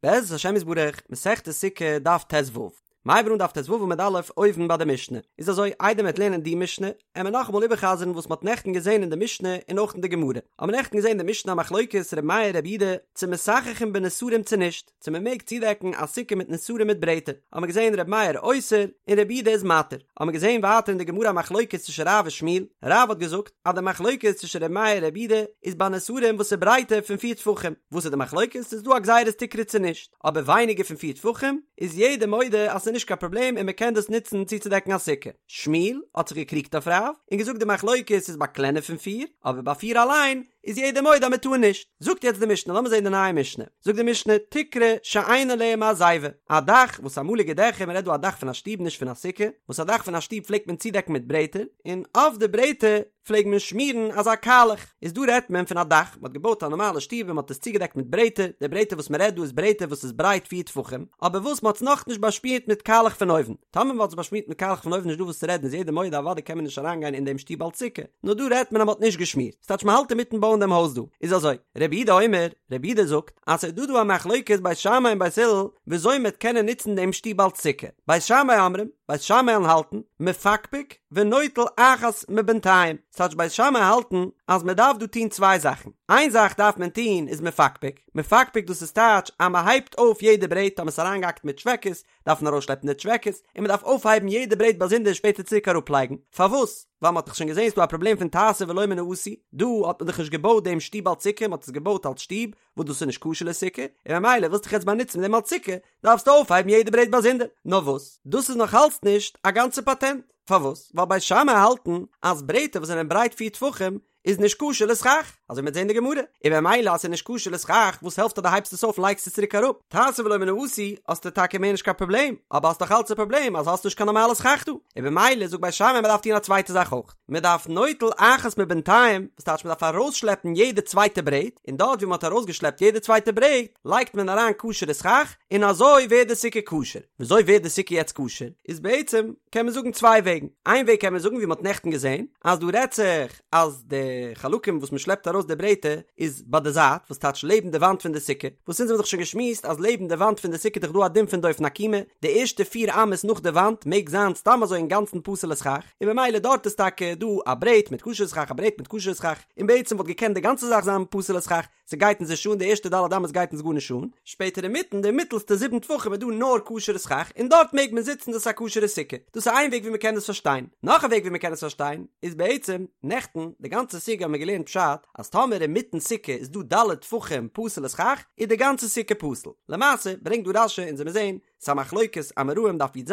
בעזרת השם יתברך, מסכת סוכה, דף ט"ו. מ'הייבט אן דף ט"ו עמוד א', אויבן ביי די משנה. איז אזוי, איידער מ'וועט לערנען די משנה, עמער נאכאמאל איבערחזר'ן וואס מ'האט נעכטן געזען אין די משנה און אויך אין די גמרא. האבן מיר נעכטן געזען אין די משנה א מחלוקת ר' מאיר ר' יהודה צו מסככין בנסרים צו נישט, צו מ'מעג צודעקן א סוכה מיט נסרים מיט ברעטער. האבן מיר געזען ר' מאיר אוסר און ר' יהודה איז מתיר. האבן מיר געזען ווייטער אין די גמרא א מחלוקת צווישן רב און שמואל, רב האט געזאגט אז די מחלוקת צווישן ר' מאיר און ר' יהודה איז ביי נסרים וואס איז ברייטער פון פיר טפחים, וואס איז די מחלוקת ס'איז דא א גזירת תקרה צו נישט, אבער ווייניגער פון פיר טפחים איז יעדער מודה אז ס'איז נישט קיין פראבלעם און מ'קען דאס נוצן צוצודעקן א סוכה. שמואל האט זיך געקריגט אויף רב און געזאגט די מחלוקת איז ביי קלענער פון פיר, אבער ביי פיר אליין איז יעדער מודה אז מ'טאר נישט. זאגט יעצט די משנה, לאמיר זען די נייע משנה, זאגט די משנה, תקרה שאין עליה מעזיבה, א דאך וואס אמאליגע דעכער, מ'רעדט דא א דאך פון א שטוב נישט פון א סוכה, וואס א דאך פון א שטוב פלעגט מען צודעקן מיט ברעטער, און אויף די ברעטער פלעג מען שמירן אזא קאלעך, איז דא רעדט מען פון א דאך, מ'האט געבויט א נארמאלע שטוב און מ'האט עס צוגעדעקט מיט ברעטער, די ברעטער וואס מ'רעדט דא איז ברעטער וואס איז ברייט פיר טפחים, אבער וואס מ'האט עס נאכנישט באשמירט מיט קאלעך פון אויבן, טאמער מ'האט עס באשמירט מיט קאלעך פון אויבן נישט דא וואס צו רעדן איז יעדער מודה אוודאי קען מען נישט אריינגיין אין דעם שטוב אלס סוכה, נאר דא רעדט מען אז מ'האט נישט געשמירט, ס'טייטש מ'האלט אינמיטן בויען דעם הויז דא, איז אזוי, רבי יהודה אומר, רבי יהודה זאגט, אז ס'איז דא דא א מחלוקת בית שמאי און בית הלל וויאזוי מ'וועט קענען נוצן דעם שטוב אלס סוכה, בית שמאי אומרים, בית שמאי האלטן, מפקפק ונוטל אחת מבינתיים, ס'טייטש בית שמאי האלטן אז מ'דארף דא טון צוויי זאכן, איין זאך דארף מען טון איז מפקפק, מפקפק דאס איז טייטש אז מ'הייבט אויף יעדע ברעט טאמער ס'איז אריינגעהאקט מיט טשוועקעס, דארף מען ארויסשלעפן די טשוועקעס, און מען דארף אויפהייבן יעדע ברעט באזונדער און שפעטער צוריק אראפלייגן. פארוואס? ווייל מען האט דאך שוין געזען ס'דא א פראבלעם פון תעשה ולא מן העשוי, דא האט מען דאך נישט געבויט דעם שטוב אלס סוכה, מען האט עס געבויט אלס שטוב, וואס דאס איז נישט כשר לסוכה, און ממילא ווילסט דיך יעצט באנוצן מיט דעם אלס סוכה, דארפסטו אויפהייבן יעדע ברעט באזונדער. נאר וואס? דאס איז נאך אלץ נישט א גאנצע פאטענט. פארוואס? ווייל בית שמאי האלטן אז ברעטער וואס זענען ברייט פיר טפחים איז נישט כשר לסכך, אזוי מ'וועט זען די גמרא, און במילא אז ס'איז נישט כשר לסכך, וואס העלפט אז דו הייבסט עס אויף און לייגסט עס צוריק אראפ? תעשה ולא מן העשוי, האסטו טאקע מער נישט קיין פראבלעם, אבער האסט דאך אלץ א פראבלעם אז האסט נישט קיין נארמאלע סכך דא, און במילא זאגט בית שמאי מ'דארף טון א צווייטע זאך אויך, מ'דארף נוטל אחת מבינתיים, וואס טייטש מ'דארף ארויסשלעפן יעדע צווייטע ברעט, און דארט ווי מ'האט ארויסגעשלעפט יעדע צווייטע ברעט, לייגט מען אריין כשר'ע סכך, און אזוי ווערט די סוכה כשר. וויאזוי ווערט די סוכה יעצט כשר? איז בעצם קען מען זאגן צוויי וועגן, איין וועג קען מען זאגן ווי מען האט נעכטן געזען, אז דא רעדט זיך אז די חלקים וואס מען שלעפט ארויס די ברעטער איז ביי די זייט, וואס טייטש לעבן די וואנט פון די סוכה, וואס אונז האבן דאך שוין געשמועסט אז לעבן די וואנט פון די סוכה איז דאך דא א דין פון דופן עקומה, די ערשטע פיר אמות נאך די וואנט מעג זיין סתם אזוי אינגאנצן פסול'ע סכך, און במילא דארט איז טאקע דא א ברעט מיט כשר'ע סכך א ברעט מיט כשר'ע סכך, און בעצם וואלט געקענט די גאנצע זאך זיין פסול'ע סכך, ס'גייט אונז נישט אן, די ערשטע ד' אמות גייט אונז גארנישט אן, שפעטער אינמיטן די מיטעלסטע זיבן טפחים איז דא נאר כשר'ע סכך און דארט מעג מען זיצן דאס איז א כשר'ע סוכה, דאס איז איין וועג ווי מ'קען דאס פארשטיין, נאך א וועג ווי מ'קען עס פארשטיין איז בעצם, נעכטן די גאנצע סוגיא האבן מיר געלערנט פשט אז טאמער אינמיטן סוכה איז דא ד' טפחים פסול'ע סכך איז די גאנצע סוכה פסול, למעשה ברענגט דא רש"י אונז וועמיר זעהן ס'איז א מחלוקת אמוראים דף י"ז,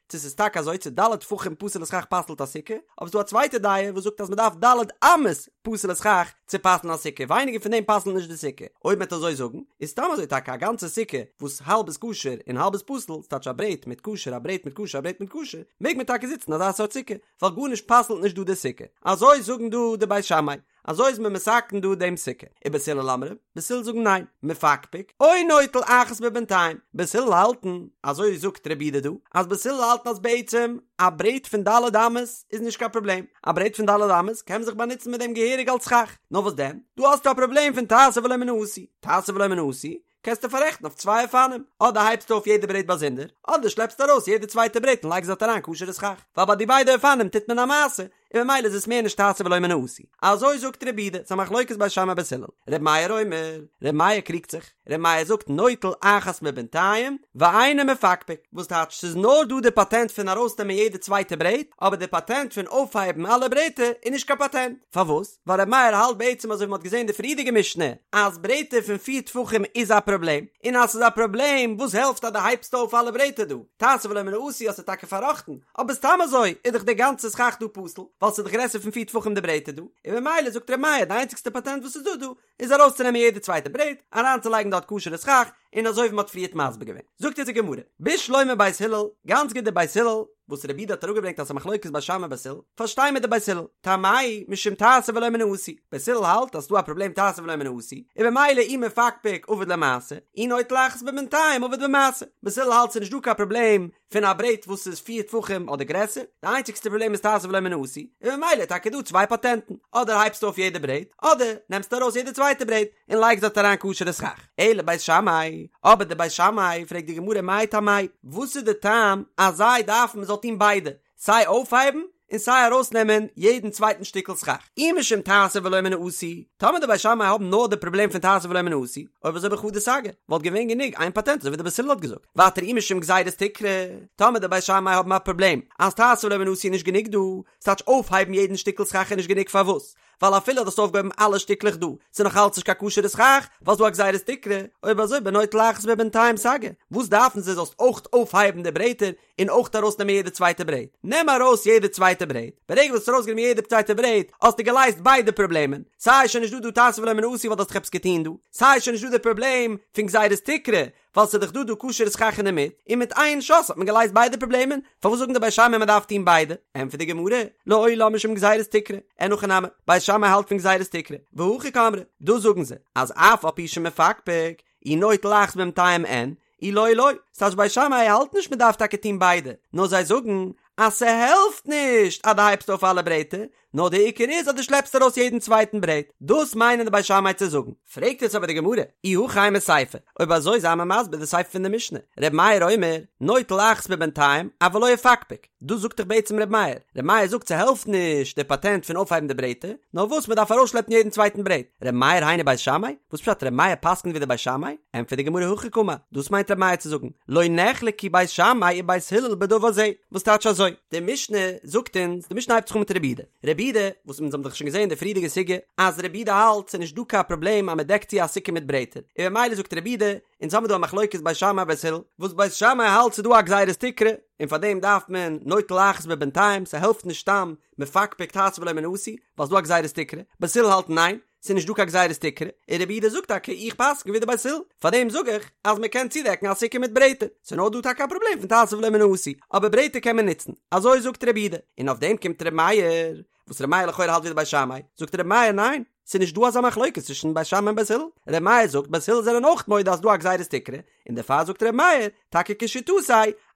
צו ס'איז טאקע אזוי צו ד' טפחים פסול'ע סכך פסל'ט א סוכה, אבער ס'דא א צווייטע דעה וואס זאגט אז מ'דארף ד' אמות פסול'ע סכך צו פסל'ן א סוכה, ווייניגער פון דעם פסל'ט נישט די סוכה. אויב מ'עט אזוי זאגן, איז סתם אזוי טאקע א גאנצע סוכה וואס האלב איז כשר און האלב איז פסול, ס'טייטש א ברעט מיט כשר א ברעט מיט כשר א ברעט מיט כשר, מעג מען טאקע זיצן אזא סארט סוכה, ווייל גארנישט פסל'ט נישט דא די סוכה. אזוי זאגן דא די בית שמאי. אזוי איז מען מתקן דא דעם סוכה. ובית הלל אומרים, בית הלל זאגן ניין, מפקפק, או נוטל אחת מבינתיים, בית הלל האלטן, אזוי זאגט רבי יהודה דא, אז בית הלל האלטן אז בעצם א ברעט פון ד' אמות איז נישט קיין פראבלעם, א ברעט פון ד' אמות קען מען זיך באנוצן מיט דעם געהעריג אלס סכך, נאר וואס דען, דא האסטו א פראבלעם פון תעשה ולא מן העשוי, תעשה ולא מן העשוי, קענסטו פאררעכטן אויף צוויי אופנים, אדער הייבסטו אויף יעדע ברעט באזונדער, אדער שלעפסטו ארויס יעדע צווייטע ברעט און לייגסט דארט אריין כשר'ע סכך, ווייל ביי די ביידע אופנים טוט מען א מעשה, און ממילא איז עס מער נישט תעשה ולא מן העשוי. אזוי זאגט רבי יהודה, ס'איז א מחלוקת בית שמאי בית הלל. ר' מאיר אומר, ר' מאיר קריגט זיך, ר' מאיר זאגט נוטל אחת מבינתיים, ואינו מפקפק, וואס טייטש ס'איז נאר דא די פאטענט פון ארויסנעמען יעדע צווייטע ברעט, אבער די פאטענט פון אויפהייבן אלע ברעטער איז נישט קיין פאטענט. פארוואס? ווייל ר' מאיר האלט בעצם אזוי ווי מ'האט געזען די פריערדיגע משנה אז ברעטער פון פיר טפחים איז א פראבלעם, און אז ס'איז א פראבלעם וואס העלפט אז דו הייבסט אויף אלע ברעטער דא? תעשה ולא מן העשוי האסטו טאקע פארראכטן, אבער סתם אזוי איז דאך די גאנצע סכך דא פסול, ווייל ס'איז דאך גרעסער פון פיר טפחים די ברעטער דא, און ממילא זאגט ר' מאיר די איינציגסטע פאטענט וואס איז דא דא איז ארויסצונעמען יעדע צווייטע ברעט, אריינצולייגן דארט כשר'ע סכך, און אזוי ווי מ'האט פריערט מסביר געווען. זאגט אונז די גמרא, בשלמא בית הלל, גאנץ גוט די בית הלל, וואס רבי יהודה האט אראפגעברענגט אז ס'איז א מחלוקת בית שמאי בית הלל, פארשטיי מיר די בית הלל, טעמייהו משום תעשה ולא מן העשוי, בית הלל האלט אז ס'דא א פראבלעם תעשה ולא מן העשוי, און במילא אי מפקפק עביד ליה מעשה, אי נוטל אחת מבינתיים עביד במעשה, בית הלל האלט ס'איז נישט דא קיין פראבלעם פון א ברעט וואס איז פיר טפחים אדער גרעסער, די איינציגסטע פראבלעם איז תעשה ולא מן העשוי, און ממילא איז טאקע דא צוויי פאטענטן, אדער הייבסטו אויף יעדע ברעט, אדער נעמסטו ארויס יעדע צווייטע ברעט און לייגסט דארט אריין כשר'ע סכך. אלא בית שמאי. אבער די בית שמאי, פרעגט די גמרא מאי טעמייהו, וואס איז די טעם אז זיי דארפן מ'זאל טון ביידע, סיי אויפהייבן און סיי ארויסנעמען יעדן צווייטן שטיקל סכך, אי משום תעשה ולא מן העשוי, טאמער די בית שמאי האבן נאר די פראבלעם פון תעשה ולא מן העשוי, אויב אזוי בחדא סגי, וואלט געווען גענוג איין פאטענט אזוי ווי די בית הלל האט געזאגט, ווייטער אי משום גזירת תקרה, טאמער די בית שמאי האבן א פראבלעם אז תעשה ולא מן העשוי איז נישט גענוג דא, ס'טייטש אויפהייבן יעדן שטיקל סכך איז נישט גענוג פארוואס? ווייל אפילו האסט אויפגעהויבן אלע שטיקלעך דא, ס'איז נאך אלץ נישט קיין כשר'ע סכך, ווייל ס'דא א גזירת תקרה, אויב אזוי בנוטל אחת מבינתיים סגי, וואס דארפן זיי זאלסט אויך אויפהייבן די ברעטער און אויך ארויסנעמען יעדע צווייטע ברעט? נעם ארויס יעדע צווייטע ברעט, ברגע וואס האסט ארויסגענומען יעדע צווייטע ברעט האסטו געלייזט ביידע פראבלעמען, סיי שוין נישט דא דא תעשה ולא מן העשוי ווייל דו האסט דאך עפעס געטון דא, סיי שוין נישט דא די פראבלעם פון גזירת תקרה ווייל ס'איז דאך דא דא כשר'ע סכך אינדערמיט, און מיט איין שאס האט מען געלייזט ביידע פראבלעמען, פארוואס זאגן די בית שמאי מען דארף טון ביידע? ענטפערט די גמרא, לעולם משום גזירת תקרה, אין הכי נמי, בית שמאי האלט פון גזירת תקרה, והכי קאמרי, דאס זאגן זיי, אז אף על פי שמפקפק, אי נוטל אחת מבינתים אין, אי לא לא, ס'טייטש בית שמאי האלט נישט מען דארף טאקע טון ביידע, נאר זיי זאגן אז ס'העלפט נישט אז דו הייבסט אויף אלע ברעטער, נאר די עיקר איז אז דו שלעפסט ארויס יעדן צווייטן ברעט, דאס מיינען די בית שמאי צו זאגן. פרעגט יעצט אבער די גמרא, אי הכי אימא סיפא, אויב אזוי זיי מיר מסביר די סיפא פון די משנה, ר' מאיר אומר, נוטל אחת מבינתים, אבל לא יפקפק, דאס זאגט דאך בעצם ר' מאיר, ר' מאיר זאגט ס'העלפט נישט די פאטענט פון אויפהייבן די ברעטער, נאר וואס מ'דארף ארויסשלעפן יעדן צווייטן ברעט, ר' מאיר היינו בית שמאי? וואס פשט ר' מאיר פסק'נט ווי די בית שמאי? ענטפערט די גמרא הכי קאמר, דאס מיינט ר' מאיר צו זאגן, לא נחלקו בית שמאי ובית הלל בדבר זה, וואס טייטש אזוי? די משנה זאגט אונז, די משנה הייבט זיך אן מיט רבי יהודה, רבי יהודה, וואס אונז האבן דאך שוין געזען אין די פריערדיגע סוגיא, אז רבי יהודה האלט ס'איז נישט דא קיין פראבלעם אז מ'דעקט צו א סוכה מיט ברעטער, און במילא זאגט רבי יהודה, אונז האבן דא א מחלוקת בית שמאי בית הלל, וואס בית שמאי האלט ס'איז דא א גזירת תקרה, און פאר דעם דארף מען נוטל אחת מבינתים, ס'העלפט נישט סתם מפקפק תעשה ולא מן העשוי, ווייל ס'איז דא א גזירת תקרה, בית הלל האלט ניין, ס'איז נישט דא קיין גזירת תקרה, און רבי יהודה זאגט טאקע איך פסק'ן ווי די בית הלל, פאר דעם זאג איך אז מען קען צודעקן א סוכה מיט ברעטער, ס'איז נאר דא טאקע א פראבלעם פון תעשה ולא מן העשוי, אבער ברעטער קען מען נוצן, אזוי זאגט רבי יהודה, און אויף דעם קומט רבי מאיר, וואס רבי מאיר לכאורה האלט ווי די בית שמאי, זאגט רבי מאיר ניין, ס'איז נישט דא אזא מחלוקת צווישן בית שמאי און בית הלל, רבי מאיר זאגט בית הלל זענען אויך מודה אז ס'דא א גזירת תקרה, און דערפאר זאגט רבי מאיר, טאקע כשיטתו,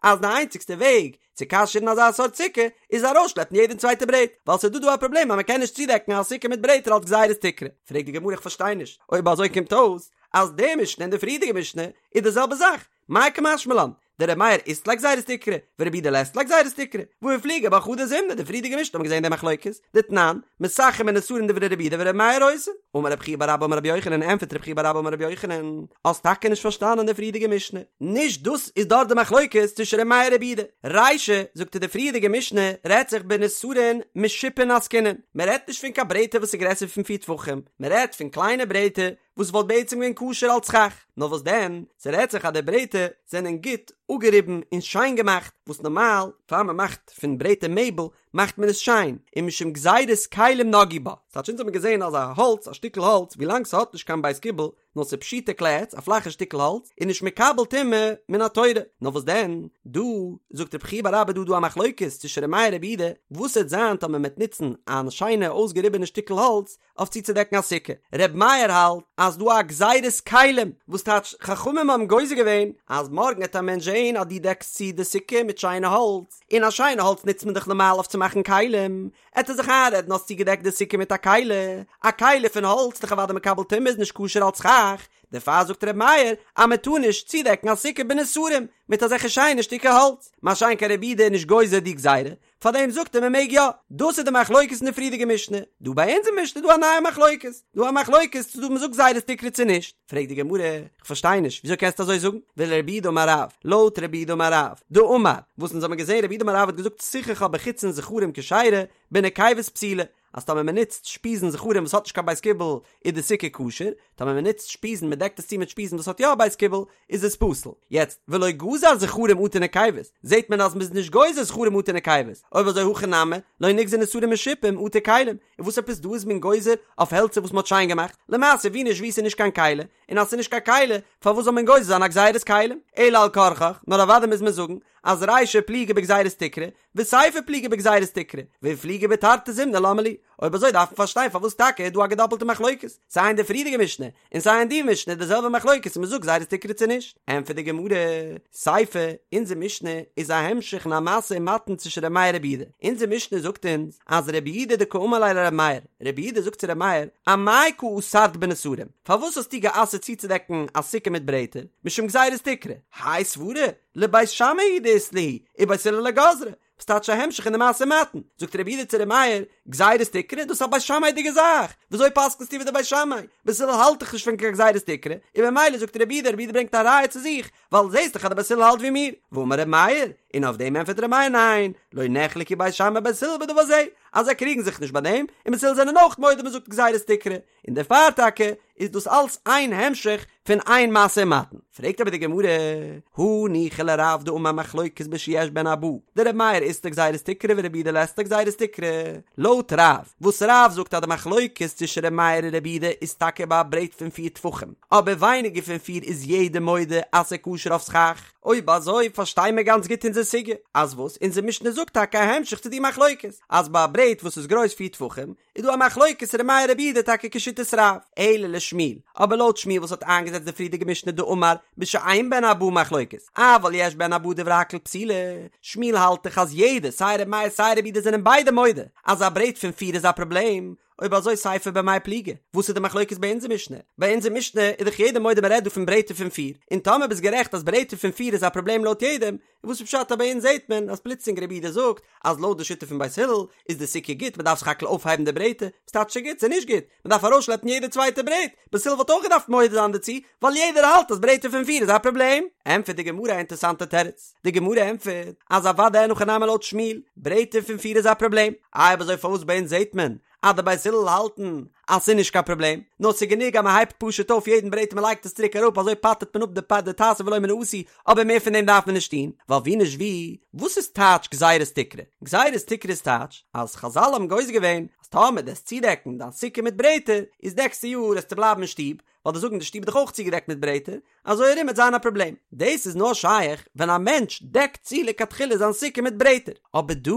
אז די איינציגסטע וועג צו כשר'ן אזא סארט סוכה איז ארויסשלעפן יעדע צווייטע ברעט, ווייל ס'איז דא דא א פראבלעם אז מ'קען נישט צודעקן א סוכה מיט ברעטער אלס גזירת תקרה. פרעגט די גמרא איך פארשטיי נישט, אויב אזוי קומט אויס אז די משנה און די פריערדיגע משנה איז די זעלבע זאך, מאי קא משמע לן, דר' מאיר אית ליה גזירת תקרה, ורבי יהודה לית ליה גזירת תקרה, והא איפליגו בה חדא זימנא, די פריערדיגע משנה האט מען געזען די מחלוקת, דתנן, מסככין בנסרים דברי רבי יהודה ור' מאיר אוסר. אמר רב חייא בר אבא אמר רבי יוחנן, ענטפערט רב חייא בר אבא אמר רבי יוחנן, האסט טאקע נישט פארשטאנען די פריערדיגע משנה, נישט דאס איז דארט די מחלוקת צווישן ר' מאיר רבי יהודה, רישא, זאגט ער די פריערדיגע משנה רעדט זיך בנסרין משופין עסקינן, מען רעדט נישט פון קיין ברעטער וואס איז גרעסער פון פיר טפחים, מען רעדט פון קליינע ברעטער וואס וואלט בעצם געווען כשר אלס סכך, נאר וואס דען, ס'רעדט זיך אז די ברעטער זענען גוט אפגעריבן און שיין געמאכט, וואס נארמאל פאר מען מאכט פון ברעטער מעבל מאכט מען עס שיין, און משום גזירת כלים נגעו בה, ס'טייטש אונז האבן געזען אז א האלץ, א שטיקל האלץ, ווילאנג ס'האט נישט קיין בית קיבול, נאר ס'איז פשוטי כלי עץ, א פלאכע שטיקל האלץ, איז נישט מקבל טומאה מן התורה, נאר וואס דען, דא זאגט רב חייא בר אבא דא דא א מחלוקת צווישן ר' מאיר רבי יהודה, וואס וועט זיין טאמער מ'וועט נוצן א שיינע אויסגעריבענע שטיקל האלץ, אויף צוצודעקן א סוכה. ר' מאיר האלט אז דא א גזירת כלים, וואס טייטש חכמים האבן גוזר געווען אז מארגן העט א מענטש זעהן אז דו דעקסט צו די סוכה מיט שיינע האלץ, און א שיינע האלץ נוצט מען דאך נארמאל אויף צו מאכן כלים, עט ער זיך איינרעדן האסט צוגעדעקט די סוכה מיט א כלי, א כלי פון האלץ איז דאך אוודאי מקבל טומאה איז נישט כשר אלץ סכך, דערפאר זאגט ר' מאיר אז מען טאר נישט צודעקן א סוכה בנסרים מיט אזעלכע שיינע שטיקער האלץ, מה שאין כן רבי יהודה איז נישט גוזר די גזירה, פארדעם זאגט ער מען מעג יא. דאס איז די מחלוקת אין די פריערדיגע משנה. דא ביי אונזער משנה איז דא א נייע מחלוקת. דא א מחלוקת צו דא מ'זאגט גזירת תקרה צו נישט. פרעגט די גמרא, איך פארשטיי נישט, וויאזוי קענסטו אזוי זאגן? ולרב יהודה אמר רב, לויט רב יהודה אמר רב, דאמר, וואס אונז האבן געזען רב יהודה אמר רב האט געזאגט סיככה בחיצין זכרים כשרה, בנקבות פסולה. אז טאמער מען נוצט שפיזן זכרים וואס האט נישט קיין בית קיבול איז די סוכה כשר, טאמער מען נוצט שפיזן מען דעקט עס צו מיט שפיזן וואס האט יא א בית קיבול איז עס פסול. יעצט ולא גזר זכרים אטו נקבות, זעט מען אז מען איז נישט גוזר זכרים אטו נקבות, אויב אזוי הכא נמי, לא נגזר נסרים משופים אטו כלים, און וואס עפעס דא איז מען גוזר אויף העלצער וואס מען האט שיין געמאכט, למעשה ווי נישט ווי ס'איז נישט קיין כלי, און אז ס'איז נישט קיין כלי פארוואס זאל מען גוזר זיין א גזירת כלים? אלא על כרחך, נאר אוודאי מוז מען זאגן. אז רישא פליגי בגזירת תקרה, וסיפא פליגי בגזירת תקרה, ואיפליגו בתרתי זימני למה לי? אויב אזוי דארף מען פארשטיין פארוואס טאקע איז דא א געדאפלטע מחלוקת, סיי אין די פריערדיגע משנה, און סיי אין די משנה איז די זעלבע מחלוקת צו מ'זאגט גזירת תקרה צו נישט. ענטפערט די גמרא, סיפא, אונזער משנה איז א המשך אין א משא ומתן צווישן ר' מאיר רבי יהודה. אונזער משנה זאגט אונז אז רבי יהודה דקאמר ליה לר' מאיר, רבי יהודה זאגט צו ר' מאיר, אמאי קא אסרת בנסרים, פארוואס האסטו גע'אסר'ט צוצודעקן א סוכה מיט ברעטער, משום גזירת תקרה, האי סברא, לבית שמאי הוא דאית להו, ובית הלל לא גזרי, וואס טייטש א המשך אין די משא ומתן? זאגט רבי יהודה צו ר' מאיר, גזירת תקרה, דאס איז א בית שמאי'דיגע זאך, וויאזוי פסק'נסטו ווי די בית שמאי? בית הלל האלט דאך נישט פון קיין גזירת תקרה, און ממילא זאגט רבי יהודה, רבי יהודה ברענגט א ראיה צו זיך, ווייל זעסט דאך אז די בית הלל האלט ווי מיר, ואמר ר' מאיר, און אויף דעם ענטפערט ר' מאיר ניין, לא נחלקו בית שמאי ובית הלל בדבר זה, אז זיי קריגן זיך נישט ביי דעם, און בית הלל זענען אויך מודה מ'זאגט גזירת תקרה, און דערפאר טאקע איז דאס אלץ איין המשך פון איין משא ומתן. פרעגט אבער די גמרא, הניחא לרב דאמר מחלוקת בשיש בהן ארבעה, דר' מאיר אית ליה גזירת תקרה ורבי יהודה לית ליה גזירת תקרה, לויט רב, וואס רב זאגט אז די מחלוקת צווישן ר' מאיר און רבי יהודה איז טאקע ביי א ברעט פון פיר טפחים, אבער ווייניגער פון פיר איז יעדער מודה אז ס'איז כשר אויף סכך. אויב אזוי פארשטיי מיר גאנץ גוט אונזער סוגיא, אז וואס אונזער משנה זאגט טאקע א המשך צו די מחלוקת, אז ביי א ברעט וואס איז גרויס פיר טפחים, איז דא א מחלוקת ר' מאיר רבי יהודה טאקע כשיטת רב, אלא לשמואל, אבער לויט שמואל וואס האט איינגעזעצט די פריערדיגע משנה דאמר בשאין בהן ארבעה מחלוקת, אבל יש בהן ארבעה דברי הכל פסולה, שמואל האלט דאך אז יעדער סיי ר' מאיר סיי רבי יהודה זענען ביידע מודה אז א ברעט פון פיר איז א פראבלעם, אויב אזוי סיפא במאי פליגי, וואס איז די מחלוקת ביי אונזער משנה? ביי אונזער משנה איז דאך יעדער מודה מען רעדט דא פון ברעטער פון פיר, און טאמער ביסט גערעכט אז ברעטער פון פיר איז א פראבלעם לויט יעדעם, וואס איז פשט אז ביי אונז זעהט מען אז פלוצלינג רבי יהודה זאגט אז לויט די שיטה פון בית הלל איז די סוכה גוט מען דארף סך הכל אויפהייבן די ברעטער, וואס טייטש ס'איז גוט? ס'איז נישט גוט, מען דארף ארויסשלעפן יעדע צווייטע ברעט, בית הלל וואלט אויך געדארפט מודה זיין דערצו, ווייל יעדער האלט אז ברעטער פון פיר איז א פראבלעם. ענטפערט די גמרא א אינטערסאנטע תירוץ, די גמרא ענטפערט אז אוודאי אין הכי נמי לויט שמואל, ברעטער פון פיר איז א פראבלעם, איי אויב אזוי פארוואס ביי אונז זעהט מען אז די בית הלל האלטן אז ס'איז נישט קיין פראבלעם, נאר ס'איז גענוג אז מ'הייבט פשוט אויף יעדן ברעט און מ'לייגט עס צוריק אראפ אזוי פטר'ט מען אפ די פ די תעשה ולא מן העשוי, אבער מער פון דעם דארף מען נישט טון, ווייל ווי נישט ווי, וואס איז טייטש גזירת תקרה? גזירת תקרה איז טייטש אז חזל האבן גוזר געווען אז טאמער דו וועסט צודעקן דיין סוכה מיט ברעטער, איז נעקסטע יאר וועסטו בלייבן אין שטוב, ווייל דו'סט זאגן די שטוב איז דאך אויך צוגעדעקט מיט ברעטער, אזוי ארום וועט זיין א פראבלעם. דאס איז נאר שייך ווען א מענטש דעקט צו לכתחילה זיין סוכה מיט ברעטער. אבער דא,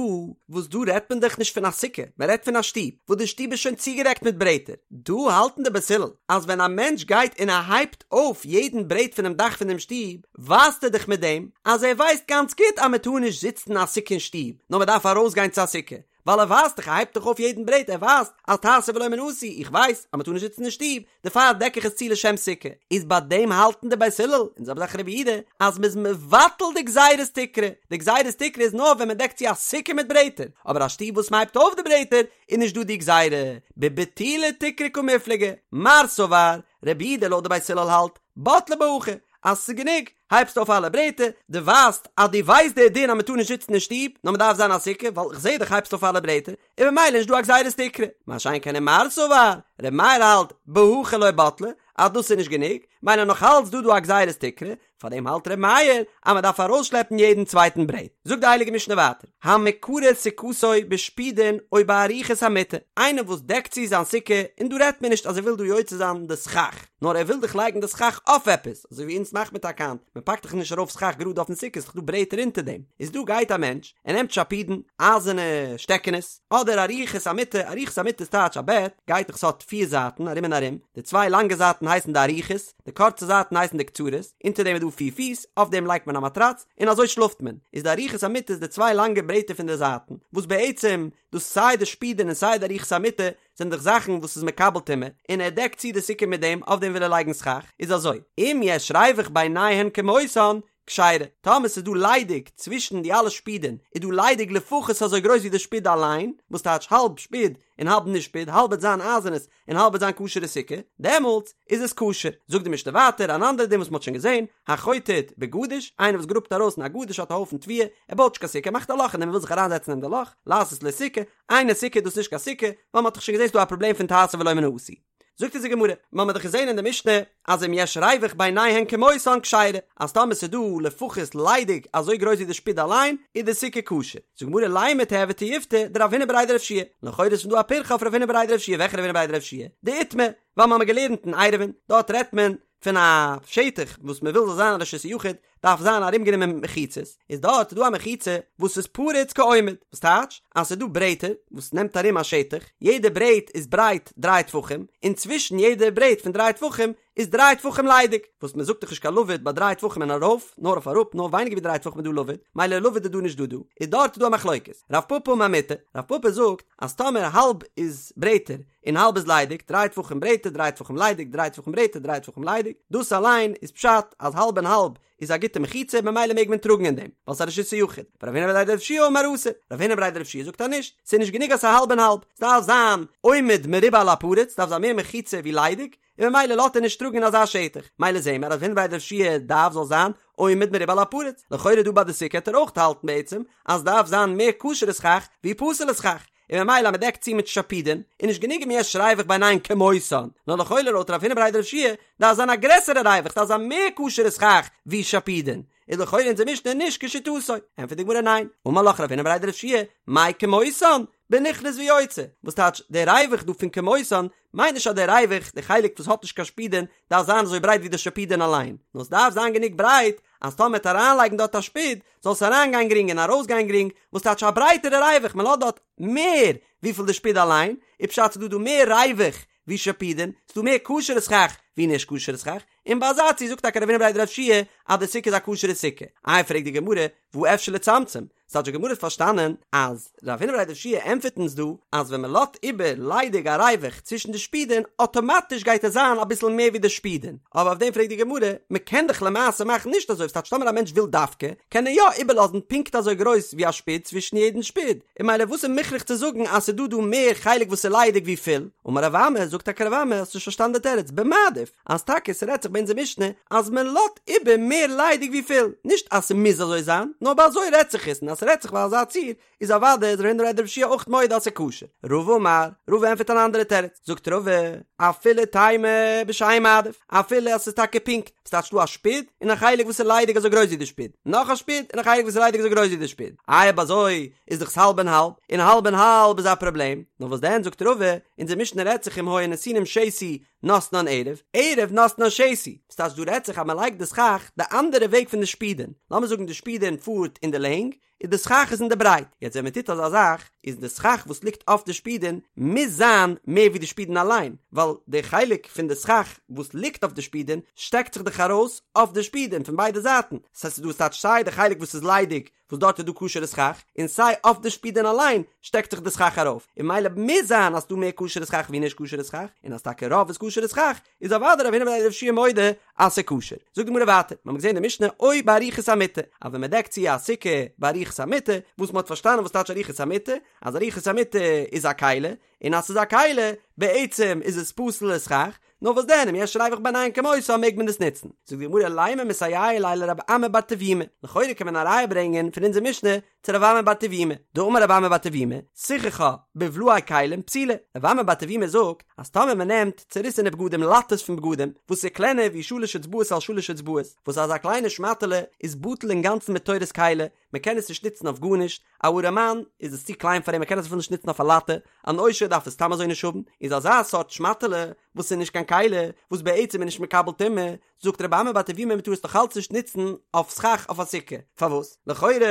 וואס דא רעדט מען דאך נישט פון א סוכה, מען רעדט פון א שטוב, וואס די שטוב איז שוין צוגעדעקט מיט ברעטער. דא האלטן די בית הלל אז ווען א מענטש גייט און ער הייבט אויף יעדן ברעט פונעם דאך פונעם שטוב, ווייזט ער דאך מיט דעם אז ער ווייסט גאנץ גוט אז מען טאר נישט זיצן אין א סוכה אין שטוב, נאר מען דארף ארויסגיין צו א סוכה. ווייל ער ווייזט דאך, ער הייבט דאך אויף יעדן ברעט, ער ווייזט אז תעשה ולא מן העשוי, איך ווייס אז מען טאר נישט זיצן אין שטוב, דערפאר דעק איך עס צו לשם סוכה, איז ביי דעם האלטן די בית הלל, און זעלבע זאך רבי יהודה, אז מען איז מבטל די גזירת תקרה, די גזירת תקרה איז נאר ווען מען דעקט צו א סוכה מיט ברעטער, אבער א שטוב וואס מען הייבט אויף די ברעטער, איז נישט דא די גזירה, בביטולי תקרה קמיפלגי, מר סבר, רבי יהודה לויט די בית הלל האלט, בטלה בהכי, אז ס'איז גענוג, הייבסט אויף אלע ברעטער, דו ווייזט אז דו ווייסט די דין אז מ'טאר נישט זיצן אין שטוב, נאר מ'דארף זיין א סוכה, ווייל כ'זעה דאך הייבסט אויף אלע ברעטער, און ממילא נישט דא א גזירת תקרה. מה שאין כן ומר סבר, ר' מאיר האלט, בהכי לא בטלה, אז דאס איז נישט גענוג, ממילא נאך אלץ דא דא א גזירת תקרה, פארדעם האלט ר' מאיר אז מ'דארף ארויסשלעפן יעדן צווייטן ברעט. זאגט די הייליגע משנה ווייטער, המקרה סוכתו בשפודין או בארוכות המיטה, איינער וואס דעקט צו זיין סוכה, און דא רעדט מען נישט אז ער וויל דא יוצא זיין די סכך, נאר ער וויל דאך לייגן די סכך אויף עפעס, אזוי ווי אונז מאכט מען טאקע היינט, מען פאקט דאך נישט ארויף סכך גראד אויפן סוכה, ס'איז דאך דא ברעטער אונטער דעם, איז דא גייט א מענטש, ער נעמט שפודין, אייזערנע שטעקענעס, אדער ארוכות המיטה, ארוכות המיטה איז טייטש א בעט, גייט דאך ס'האט פיר זייטן ארום און ארום, די צוויי לאנגע זייטן הייסן די ארוכות, די קורצע זייטן הייסן די קצרות, אונטער דעם איז דא פיר פיס, אויף דעם לייגט מען א מאטראץ, און אזוי שלאפט מען, איז די ארוכות המיטה איז די צוויי לאנגע ברעטער פון די זייטן, וואס בעצם דאס סיי די שפודין און סיי די ארוכות המיטה זענען דאך זאכן וואס איז מקבל טומאה, און ער דעקט צו די סוכה מיט דעם, אויף דעם וויל ער לייגן סכך, איז אזוי, אם יש ריווח ביניהן כמותן, כשרה, טאמער ס'איז דא ליידיג צווישן די אלע שפודין, איז דא ליידיג לפחות אזוי גרויס ווי די שפוד אליין, וואס טייטש האלב שפוד און האלב נישט שפוד, האלב וועט זיין אייזערנעס און האלב וועט זיין כשר'ע סוכה, דעמאלטס איז עס כשר. זאגט די משנה ווייטער אן אנדערע דין וואס מ'האט שוין געזען, החוטט בגדיש, איינער וואס גראבט ארויס אין א גדיש האט א הויפן תבואה, ער בויט נישט קיין סוכה, ער מאכט א לאך אין דעם ער וויל זיך אריינזעצן אין די לאך, לעשות לו סוכה, אינה סוכה איז דאס נישט קיין סוכה, ווייל מ'האט דאך שוין געזען ס'דא א פראבלעם פון תעשה ולא מן העשוי. זאגט אונז די גמרא, מ'האמיר דאך געזען אין די משנה אז אם יש ריווח ביניהן כמותן כשרה, אז טאמער ס'איז דא לפחות ליידיג אזוי גרויס ווי די שפוד אליין, איז די סוכה כשר. זאגט די גמרא לימא תיהוי תיובתא דרב הונא בריה דרב יהושע לכאורה איז פון דא א פירכא אויף רב הונא בריה דרב יהושע וועלכע רב הונא בריה דרב יהושע? דאיתמר, ווייל מ'האמיר געלערנט אין עירובין, דארט רעדט מען. פון א שטח וואס מען וויל זאל זיין א רשות היחיד דארף זיין ארומגענומען מיט מחיצות, איז דארט איז דא א מחיצה וואס איז פרוץ כעומד, וואס טייטש אז ס'איז דא ברעטער וואס נעמט ארום א שטח, יעדע ברעט איז ברייט דריי טפחים, און צווישן יעדע ברעט פון דריי טפחים איז דריי טפחים ליידיג, וואס מען זאגט דאך נישט קיין לבוד ביי דריי טפחים און ארויף, נאר אויף אראפ, נאר ווייניגער ווי דריי טפחים איז דא לבוד, מילא לבוד איז דא נישט דא דא, איז דארט איז דא א מחלוקת, רב פפא אמר מותר, רב פפא זאגט אז טאמער האלב איז ברעטער און האלב איז ליידיג, דריי טפחים ברעטער, דריי טפחים ליידיג, דריי טפחים ברעטער, דריי טפחים ליידיג, דאס אליין איז פשט אז האלב און האלב איז א גוטע מחיצה ממילא מעג מען טראגן אין דעם, ווייל ס'איז א רשות היחיד. ורב הונא בריה דרב יהושע אמר אסור, רב הונא בריה דרב יהושע זאגט אז נישט, ס'איז נישט גענוג אז ס'איז האלב און האלב, ס'דארף זיין עומד מרובה על הפרוץ, ס'דארף זיין מער מחיצה ווי ליידיג, און ממילא לאזט ער נישט טראגן אין אזא שטח, מילא זעהן מיר אז רב הונא בריה דרב יהושע דארף זאל זיין עומד מרובה על הפרוץ, לכאורה דא ביי די סוכה העט ער אויך האלטן בעצם אז ס'דארף זיין מער כשר'ע סכך ווי פסול'ע סכך, און ממילא אז מ'דעקט צו מיט שפידין איז נישט גענוג אם יש ריוח ביניהן כמותן, נאר לכאורה לויט רב הונא בריה דרב יהושע דארף זיין א גרעסערע ריוח ס'דארף זיין מער כשר'ע סכך ווי שפידין, איז לכאורה אונזער משנה נישט כשיטתו, ענטפערט די גמרא ניין, אמר לך רב הונא בריה דרב יהושע מאי כמותן, בנכנס ויוצא, וואס טייטש דער ריוח דא פון כמותן מיינט נישט אז דער ריוח, די חלק וואס האט נישט קיין שפידין, דארף זיין אזוי ברייט ווי די שפידין אליין, נאר ס'דארף זיין גענוג ברייט אז טאמער מ'עט אריינלייגן דארט א שפיד, זאל עס אריינגיין גרינג און ארויסגיין גרינג, וואס טייטש א ברייטערע ריוח, מען לאזט דארט מער וויפיל די שפיד אליין, איז פשט ס'דא דא מער ריוח ווי שפידין, ס'דא מער כשר'ע סכך ווי נישט כשר'ע סכך, און ביי אזא ציור זאגט טאקע רב הונא בריה דרב יהושע אז די סוכה איז א כשר'ע סוכה. איי פרעגט די גמרא, והא אפשר לצמצם? ס'טייטש די גמרא האט פארשטאנען אז רב הונא בריה דרב יהושע ענטפערט אונז דא אז ווען מען לאזט איבער ליידיג א ריוח צווישן די שפידין אטאמאטיש גייט עס זיין אביסל מער ווי די שפידין, אבער אויף דעם פרעגט די גמרא, מען קען דאך למעשה מאכן נישט אזוי, ס'טייטש טאמער א מענטש וויל דווקא קען ער יא איבערלאזן פונקט אזוי גרויס ווי א שפיד צווישן יעדן שפיד, און מילא וואס איז מוכרח צו זאגן אז ס'איז דא דא מער חלק וואס איז ליידיג ווי פול? אמר רב אמי, זאגט טאקע רב אמי, האסט נישט פארשטאנען די תירוץ, במעדיף, אז טאקע ס'רעדט זיך ביי אונזער משנה אז מען לאזט איבער מער ליידיג ווי פול, נישט אז ס'מוז אזוי זיין, נאר ביי אזוי רעדט זיך עס, און אז ס'רעדט זיך ביי אזא ציור, איז אוודאי איז רב הונא בריה דרב יהושע אויך מודה אז ס'איז כשר. רבא אמר, רבא ענטפערט אן אנדערע תירוץ, זאגט רבא, אפילו תימא בשאין מעדיף, אפילו אז ס'איז טאקע פונקט, ס'טייטש דא א שפיד און א חלק וואס איז ליידיג אזוי גרויס ווי די שפיד, נאך א שפיד און א חלק וואס איז ליידיג אזוי גרויס ווי די שפיד, איי אויב אזוי איז דאך עס האלב און האלב, און האלב און האלב איז א פראבלעם, נאר וואס דען זאגט רבא, אונזער משנה רעדט זיך אם היו נתונין שתי נתנן ערב, ערב נתנן שתי, ס'טייטש דא רעדט זיך אז מ'לייגט די סכך די אנדערע וועג פון די שפידען, לאמיר זאגן די שפידען פארט אין די לענג, און די סכך איז אין די ברייט, יעצט ווען מ'טוט אזא זאך, איז די סכך וואס ליגט אויף די שפידען מוז זיין מער ווי די שפידען אליין, ווייל די חלק פון די סכך וואס ליגט אויף די שפידען שטעקט זיך דאך ארויס אויף די שפידען פון ביידע זייטן, ס'הייסט ס'איז דא ס'טייטש סיי די חלק וואס איז ליידיג וואס דארט איז דא כשר'ע סכך, און סיי אויף די שפידען אליין שטעקט זיך די סכך ארויף, און מילא מוז זיין אז ס'דא מער כשר'ע סכך ווי נישט כשר'ע סכך, און אז טאקע רוב איז כשר'ע סכך, איז אוודאי רב הונא בריה דרב יהושע מודה אז ס'איז כשר. זאגט די גמרא ווייטער, מ'האמיר געזען די משנה או בארוכות המטה, אז ווען מ'דעקט צו א סוכה בארוכות המטה, וואס מ'האט פארשטאנען וואס טייטש ארוכות המטה, אז ארוכות המטה איז א כלי, און אז ס'איז א כלי, בעצם איז עס פסול לסכך, נאר וואס דען אם יש ריוח ביניהן כמותן מעג מען עס נוצן. זאגט די גמרא לימא מסייע ליה לרב אמי בר טביומי, לכאורה קען מען א ראיה ברענגען פון אונזער משנה צו רב אמי בר טביומי, דאמר רב אמי בר טביומי, סיככה בבלאי כלים פסולה, רב אמי בר טביומי זאגט אז טאמער מען נעמט צוריסענע בגדים לאטעס פון בגדים וואס איז קלענער ווי שלש אצבעות על שלש אצבעות, וואס אזא קליינע שמאטעלע איז בטל אינגאנצן מתורת כלי, מען קען עס נישט נוצן אויף גארנישט, א ארעמאן איז עס צו קליין פאר אים ער קען עס אפילו נישט נוצן אויף א לאטע, אן עושר דארף עס סתם אזוי נישט האבן, איז אזא סארט שמאטעלע וואס איז נישט קיין כלי, וואס בעצם איז נישט מקבל טומאה, זאגט רבי אמי בר טביומי מען טאר עס נאך אלץ נישט נוצן אויף סכך אויף א סוכה, פארוואס? לכאורה איז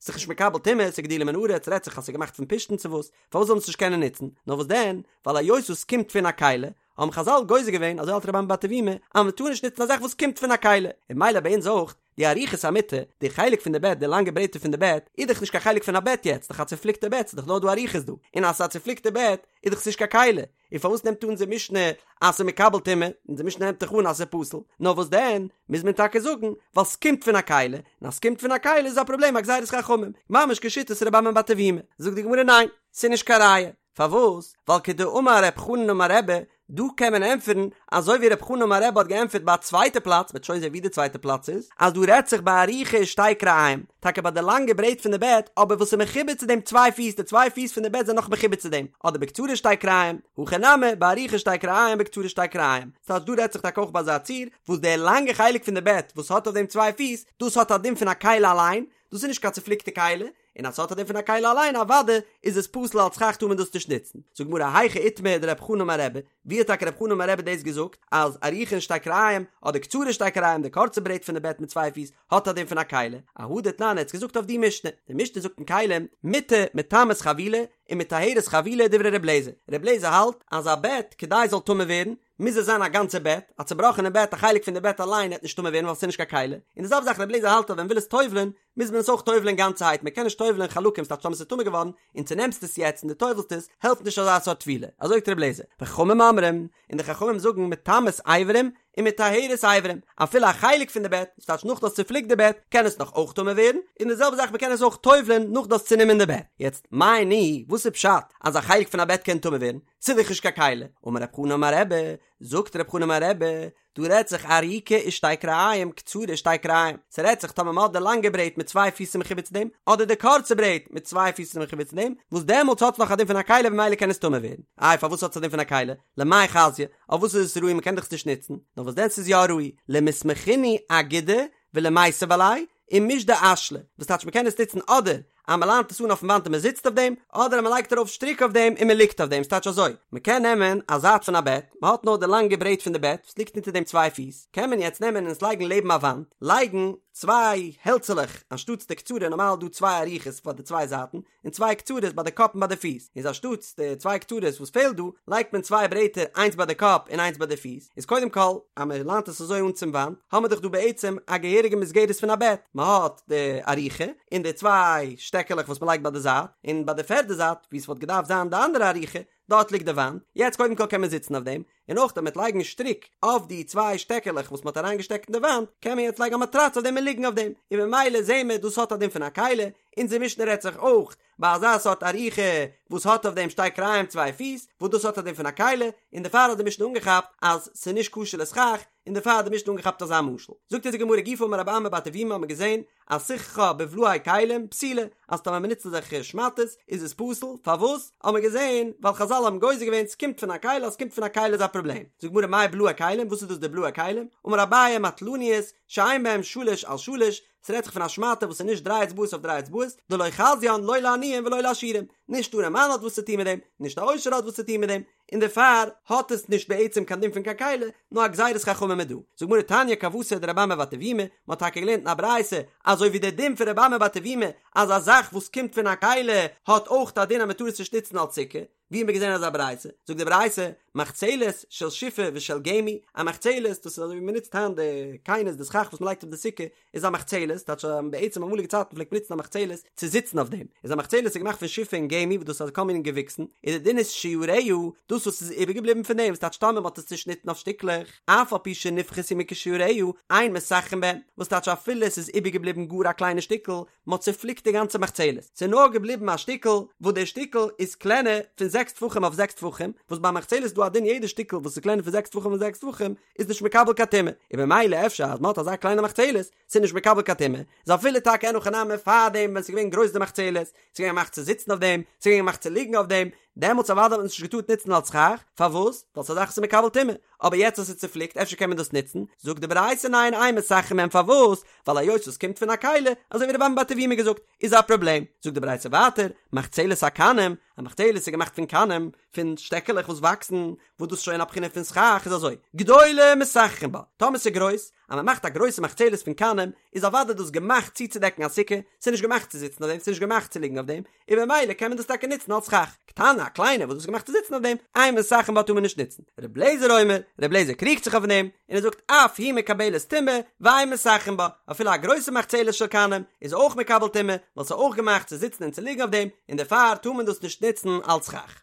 דאך נישט מקבל טומאה, ס'איז גידולי מן הארץ, רעדט זיך אז ס'איז געמאכט פון פשתן צו וואס, פארוואס זאל מען עס נישט קענען נוצן? נאר וואס דען, ווייל היות עס קומט פון א כלי, האבן חזל גוזר געווען, אזוי האלט רבי אמי בר טביומי, אז מען טאר נישט נוצן א זאך וואס קומט פון א כלי, און מילא ביי אונז אויך, די ארוכות המטה, די חלק פון די בעט, די לאנגע ברעטער פון די בעט, איז דאך נישט קיין חלק פון א בעט יעצט, דאך א צופליקטע בעט, ס'איז דאך נאר דא ארוכות דא, און אז ס'איז א צופליקטע בעט, איז דאך ס'נישט קיין כלי, און פארוואס נעמט אן אונזער משנה אז ס'איז מקבל טומאה, אונזער משנה נעמט דאך אן אז ס'איז פסול, נאר וואס דען, מוז מען טאקע זאגן, ווייל ס'קומט פון א כלי, און אז ס'קומט פון א כלי איז א פראבלעם א גזירת חכמים, ממש כשיטת רבי אמי בר טביומי, זאגט די גמרא ניין, ס'איז נישט קיין ראיה, פארוואס? ווייל כדאמר רב חנן אמר רבי, דא קען מען ענטפערן אזוי ווי רב חנן אמר רבי האט געענטפערט ביי א צווייטע פלאץ, מ'וועט שוין זען ווי די צווייטע פלאץ איז, אז דא רעדט זיך בארוכה ושתי כרעים, טאקע ביי די לאנגע ברעט פון די בעט, אבער וואס איז מחובר צו דעם צוויי פיס, די צוויי פיס פון די בעט זענען נאך מחובר צו דעם, אדער בקצרה שתי כרעים, הכא נמי, בארוכה שתי כרעים בקצרה שתי כרעים, ס'הייסט דא רעדט זיך טאקע אויך ביי אזא ציור, וואס די לאנגע חלק פון די בעט וואס האט אויף דעם צוויי פיס, דאס האט א דין פון א כלי אליין, דאס איז נישט קיין צופליקטע כלי, און אז ס'האט א דין פון א כלי אליין אוודאי איז עס פסול אלס סכך טאר מען דאס נישט נוצן. זאגט די גמרא היכא איתמר דרב חנא אמר רבי, ווי האט טאקע רב חנא אמר רבי דאס געזאגט אז ארוכה און שתי כרעים אדער קצרה שתי כרעים די קורצע ברעט פון די בעט מיט צוויי פיס האט א דין פון א כלי, אהא דתנן ער האט עס געזאגט אויף די משנה, די משנה זאגט אין כלים מיטה מטמאת חבילה ומטהרת חבילה דברי ר' לעזער, ר' לעזער האלט אז א בעט כדי עס זאל טמא ווערן מוז עס זיין א גאנצע בעט, א צובראכענע בעט א חלק פון די בעט אליין העט נישט טמא ווערן ווייל עס איז נישט קיין כלי, און די זעלבע זאך ר' לעזער האלט אז ווען מ'וויל עס טובל'ען מוז מען עס אויך טובל'ען גאנצערהייט מען קען נישט טובל'ען חלקים ס'טייטש טאמער ס'איז טמא געווארן און צונעמסט עס יעצט און דו טובל'סט עס העלפט נישט אזא סארט טבילה, אזוי זאגט ר' לעזער, וחכמים אומרים, און די חכמים זאגן מטמאת אברים ומטהרת אברים, אפילו א חלק פון די בעט, דאס טייטש נאך דו האסט צופליקט די בעט, קען עס נאך אויך טמא ווערן, און די זעלבע זאך מען קען עס אויך טובל'ען נאך דו האסט צונומען די בעט. יעצט, מאי ניהו, וואס איז פשט אז א חלק פון א בעט קען טמא ווערן? ס'איז דאך נישט קיין כלי. אמר רב חנא אמר רבי, זאגט רב חנא אמר רבי, דא רעדט זיך ארוכה ושתי כרעים קצרה ושתי כרעים, ס'רעדט זיך טאמער מ'האט די לאנגע ברעט מיט צוויי פיס מחובר צו דעם, אדער די קורצע ברעט מיט צוויי פיס מחובר צו דעם, וואס דעמאלטס האט עס נאך א דין פון א כלי במילא קען עס טמא ווערן. איי פארוואס האט עס א דין פון א כלי? למאי חזיא? אויף וואס איז עס ראוי מ'קען דאך עס נישט נוצן? נאר וואס דען ס'איז יא ראוי למיסמכינהו אגודא ולמיתב עלייהו ומישדי אשלי, וואס טייטש מ'קען עס נוצן אדער אז מ'ליינט עס אן אויפן וואנט און מ'זיצט אויף דעם, אדער אז מ'לייגט ארויף שטריק אויף דעם און מ'ליגט אויף דעם, ס'טייטש אזוי, מ'קען נעמען א זייט פון א בעט, מ'האט נאר די לאנגע ברעט פון די בעט וואס ליגט אונטער דעם צוויי פיס, קען מען יעצט נעמען און עס לייגן לעבן א וואנט, לייגן צוויי העלצעלעך אנשטאטס די קצרה, נארמאל איז דא צוויי ארוכות פאר די צוויי זייטן, און צוויי קצרות ביי די קאפ און ביי די פיס, איז אנשטאטס די צוויי קצרות וואס פעלט דא, לייגט מען צוויי ברעטער איינס ביי די קאפ און איינס ביי די פיס, איז קודם כל אז מען ליינט עס אזוי אן צום וואנט, האמער דאך דא בעצם א געהעריגע מסגרת פון א בעט, מען האט די ארוכה און די צוויי שטעקעלעך וואס מען לייגט ביי די זייט, און ביי די פערדע זייט וואו עס וואלט געדארפט זיין די אנדערע ארוכה, דארט ליגט די וואנט, יעצט קודם כל קען מען זיצן אויף דעם, און אויך אז מ'וועט לייגן שטריק אויף די צוויי שטעקעלעך וואס מ'האט אריינגעשטעקט אין די וואנט, קען מען יעצט לייגן א מאטראץ אויף דעם און ליגן אויף דעם, און ממילא זעהן מיר דאס האט א דין פון א כלי, אונזער משנה רעדט זיך אויך ביי אזא סארט ארוכה וואס האט אויף דעם שתי כרעים צוויי פיס, וואס דאס האט א דין פון א כלי, און דערפאר האט די משנה אנגעכאפט אז ס'איז נישט כשר לסכך, און דערפאר האט די משנה אנגעכאפט אזא משל. זאגט אונז די גמרא גופא אמר רבי אמי בר טביומי האט מען געזען אז סיככה בבלאי כלים פסולה, אז טאמער מ'נוצט אזעלכע שמאטעס איז עס פסול, פארוואס? האט מען געזען ווייל חזל האבן גוזר געווען ס'קומט פון א כלי אז ס'קומט פון א כלי איז א פראבלעם. זאגט די גמרא מאי בלאי כלים וואס איז דאס די בלאי כלים? אמר אביי מטלניות שאין בהם שלש על שלש, ס'רעדט זיך פון א שמאטע וואס איז נישט דריי אצבעות אויף דריי אצבעות, דלא חזיין לא לעניים ולא לעשירים, נישט אן ארעמאן האט וואס צו טון מיט דעם, נישט א עושר האט וואס צו טון מיט דעם, און דערפאר האט עס נישט בעצם קיין דין פון קיין כלי, נאר א גזירת חכמים איז דא. זאגט גמרא תניא כוותיה דרבי אמי בר טביומי, מען האט טאקע געלערנט אין א ברייתא אזוי ווי דער דין פון רבי אמי בר טביומי אז א זאך וואס קומט פון א כלי האט אויך א דין אז מען טאר עס נישט נוצן אלס סוכה, ווי האט מען געזען אזא ברייתא? זאגט די ברייתא, מחצלת של שיפה ושל גמי, א מחצלת, דאס איז אזוי ווי מען נוצט היינט די קינות די סכך וואס מען לייגט אויף די סוכה, איז א מחצלת, טייטש אז בעצם אמאליגע צייטן פלעגט מען נוצן א מחצלת צו זיצן אויף דעם, איז א מחצלת איז געמאכט פון שיפה און גמי וואס דאס איז כל מיני געוויקסן, און די דין איז שיריה, דאס וואס איז איבערגעבליבן פון דעם, וואס טייטש טאמער מען האט עס צושניטן אויף שטיקלעך, אף על פי שנפחתו מכשיעוריה, אין מסככין בהן, וואס טייטש אפילו עס איז איבערגעבליבן גאר א קליינע שטיקל, מען האט צופליקט די גאנצע מחצלת, ס'איז נאר געבליבן א שטיקל, וואס דער שטיקל איז קלענער פון זעקס טפחים אויף זעקס טפחים, וואס ביי מחצלת איז דא א דין יעדע שטיקל וואס איז קלענער פון זעקס טפחים אויף זעקס טפחים איז נישט מקבל קיין טומאה, און במילא אפשר אז מען האט אזא קליינע מחצלת, ס'איז נישט מקבל קיין טומאה, איז אפילו טאקע אין הכי נמי פארדעם ווען ס'איז געווען גרויס די מחצלת, ס'איז געווען געמאכט צו זיצן אויף דעם, ס'איז געווען געמאכט צו ליגן אויף דעם, דעמאלטס אוודאי האט מען עס נישט געטארט נוצן אלס סכך, פארוואס? ווייל ס'איז א זאך וואס איז מקבל טומאה, אבער יעצט אז ס'איז צופליקט אפשר קען מען דאס נוצן, זאגט די ברייתא ניין אין מסככין בהן פארוואס? ווייל היות עס קומט פון א כלי, אזוי ווי רבי אמי בר טביומי געזאגט, איז א פראבלעם, זאגט די ברייתא ווייטער, מחצלת הקנים, א מחצלת איז געמאכט פון קנים, פון שטעקעלעך וואס וואקסן, וואס דאס איז שוין א בחינה פון סכך, איז אזוי, גדולה מסככין בה, טאמער ס'איז גרויס, אז מען מאכט א גרויסע מחצלת פון קנים, איז אוודאי דאס געמאכט צוצודעקן א סוכה, ס'איז נישט געמאכט צו זיצן אויף דעם, ס'איז נישט געמאכט צו ליגן אויף דעם, און במילא קען מען דאס טאקע נוצן אלס סכך, קטנה, א קליינע וואס דאס איז געמאכט צו זיצן אויף דעם, אין מסככין בה טאר מען נישט נוצן. ר' לעזער אומר, ר' לעזער קריגט זיך אויף דעם, און ער זאגט אף היא מקבלת טומאה, ואין מסככין בה, אפילו א גרויסע מחצלת של קנים איז אויך מקבל טומאה, ווייל ס'איז אויך געמאכט צו זיצן און צו ליגן אויף דעם, און דערפאר טאר מען דאס נישט נוצן אלס סכך.